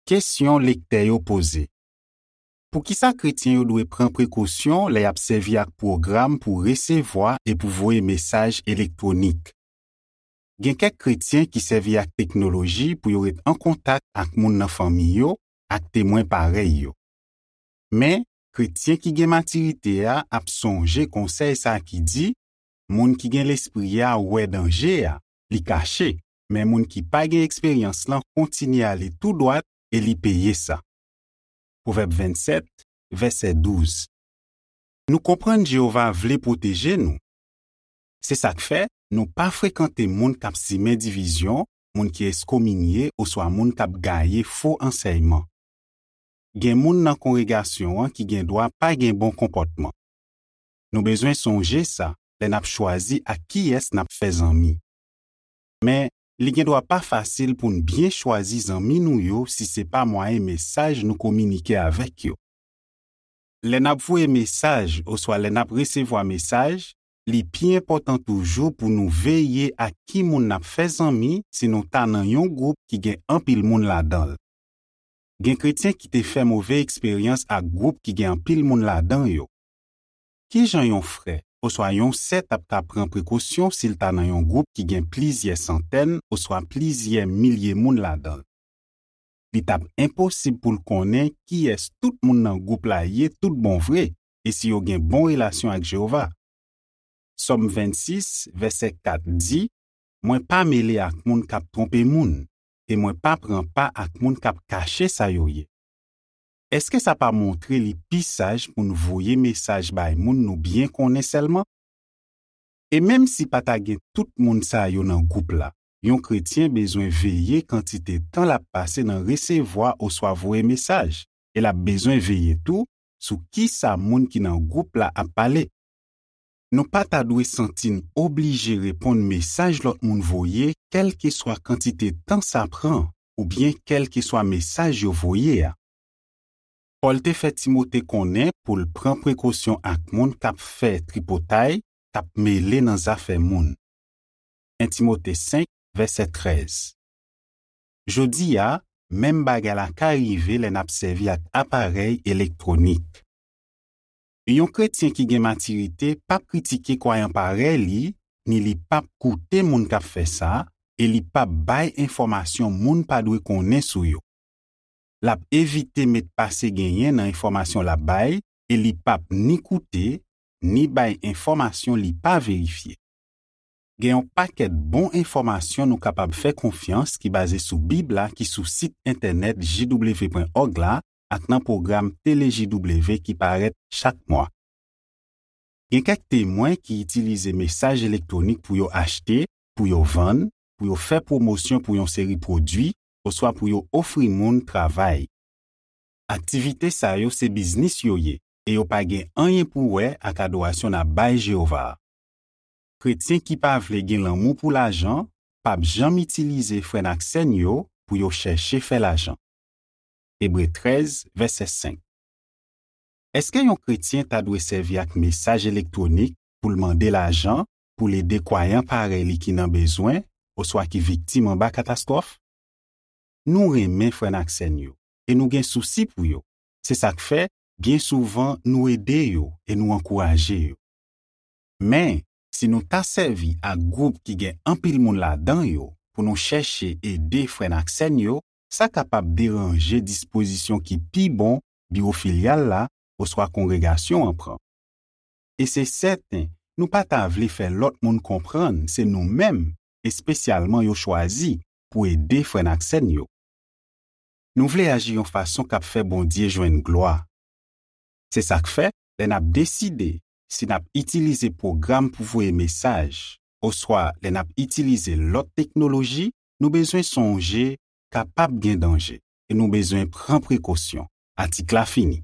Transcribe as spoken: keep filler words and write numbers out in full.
Kesyon lektè yo poze. Poukisa kretyen yo dwe pran prekosyon lè y ap sèvi ak pwogram pou resevwa e pou voye mesaj elektwonik? Gen kèk kretyen ki sèvi ak teknoloji pou yo ret an kontak ak moun nan fanmi yo ak temwen parèy yo. Men, kretyen ki gen matirite a ap sonje konsèy sa a ki di, moun ki gen lespri a wè danje a, li kache, men moun ki pa gen eksperyans lan kontinye ale tou dwat e li peye sa. Pwovèb vennsèt, vèsè douz. Nou konprann Jewova vle pwoteje nou. Se sa k fè nou pa frekante moun k ap simen divizyon, moun ki eskominye oswa moun k ap gaye fo ansèyman. Gen moun nan kongregasyon an ki gen dwa pa gen bon konpòtman. Nou bezwen sonje sa lè n ap chwazi ak kiyès n ap fè zanmi. Men, li gen dwa pa fasil pou n byen chwazi zanmi nou yo si se pa mwayen mesaj nou kominike avèk yo. Lè n ap voye mesaj oswa lè n ap resevwa mesaj, li pi enpòtan toujou pou nou veye ak ki moun n ap fè zanmi si nou ta nan yon gwoup ki gen anpil moun ladan l. Gen kretyen ki te fè move eksperyans ak gwoup ki gen anpil moun ladan yo. Ki jan yon frè oswa yon sè t ap ka pran prekosyon si l ta nan yon gwoup ki gen plizyè santèn oswa plizyè milye moun ladan l? Li t ap enposib pou l konnen kiyès tout moun nan gwoup la ye tout bon vre e si yo gen bon relasyon ak Jewova. Sòm vennsis, vèsè kat di, mwen pa mele ak moun k ap twonpe moun, e mwen pa pran pa ak moun k ap kache sa yo ye. Èske sa pa montre li pi saj pou n voye mesaj bay moun nou byen konnen sèlman? E menm si pa ta gen tout moun sa yo nan gwoup la, yon kretyen bezwen veye kantite tan l ap pase nan resevwa oswa voye mesaj, e l ap bezwen veye tou sou ki sa moun ki nan gwoup la ap pale. Nou pa ta dwe santi n oblije reponn mesaj lòt moun voye, kèlkeswa kantite tan sa pran oubyen kèlkeswa mesaj yo voye a. Pòl te fè Timote konnen pou l pran prekosyon ak moun k ap fè tripotay, k ap mele nan zafè moun. En Timote senk, vèsè trèz. Jodi a, menm bagay la ka rive lè n ap sèvi ak aparèy elektwonik. Yon kretyen ki gen matirite p ap kritike kwayan parèy li, ni li p ap koute moun k ap fè sa, e li p ap bay enfòmasyon moun pa dwe konnen sou yo. L ap evite met pase genyen nan enfòmasyon l ap bay, e li p ap ni koute, ni bay enfòmasyon li pa verifye. Gen yon pakèt bon enfòmasyon nou kapab fè konfyans ki baze sou Bib la ki sou sit entènèt J W pwen òg la ak nan pwogram Tele J W ki parèt chak mwa. Gen kèk Temwen ki itilize mesaj elektwonik pou yo achte, pou yo vann, pou yo fè pwomosyon pou yon seri pwodui, oswa pou yo ofri moun travay. Aktivite sa yo se biznis yo ye, e yo pa gen anyen pou wè ak adorasyon n ap bay Jewova a. Kretyen ki pa vle gen lanmou pou lajan p ap janm itilize frè n ak sè n yo pou yo chèche fè lajan. Ebre trèz, vèsè senk. Èske yon kretyen ta dwe sèvi ak mesaj elektwonik pou l mande lajan pou l ede kwayan parèy li ki nan bezwen oswa ki viktim anba katastwòf? Nou renmen frè n ak sè n yo, e nou gen sousi pou yo. Se sa k fè, byen souvan, nou ede yo e nou ankouraje yo. Men, si nou ta sèvi ak gwoup ki gen anpil moun ladan yo pou nou chèche ede frè n ak sè n yo, sa kapab deranje dispozisyon ki pi bon biwo filyal la oswa kongregasyon an pran. E se sèten, nou pa ta vle fè lòt moun konprann se nou menm, espesyalman yo chwazi pou ede frè n ak sè n yo. Nou vle aji yon fason k ap fè Bondye jwenn glwa. Se sa k fè, lè n ap deside si n ap itilize pwogram pou voye mesaj, oswa lè n ap itilize lòt teknoloji, nou bezwen sonje kapab gen danje, e nou bezwen pran prekosyon. Atik la fini.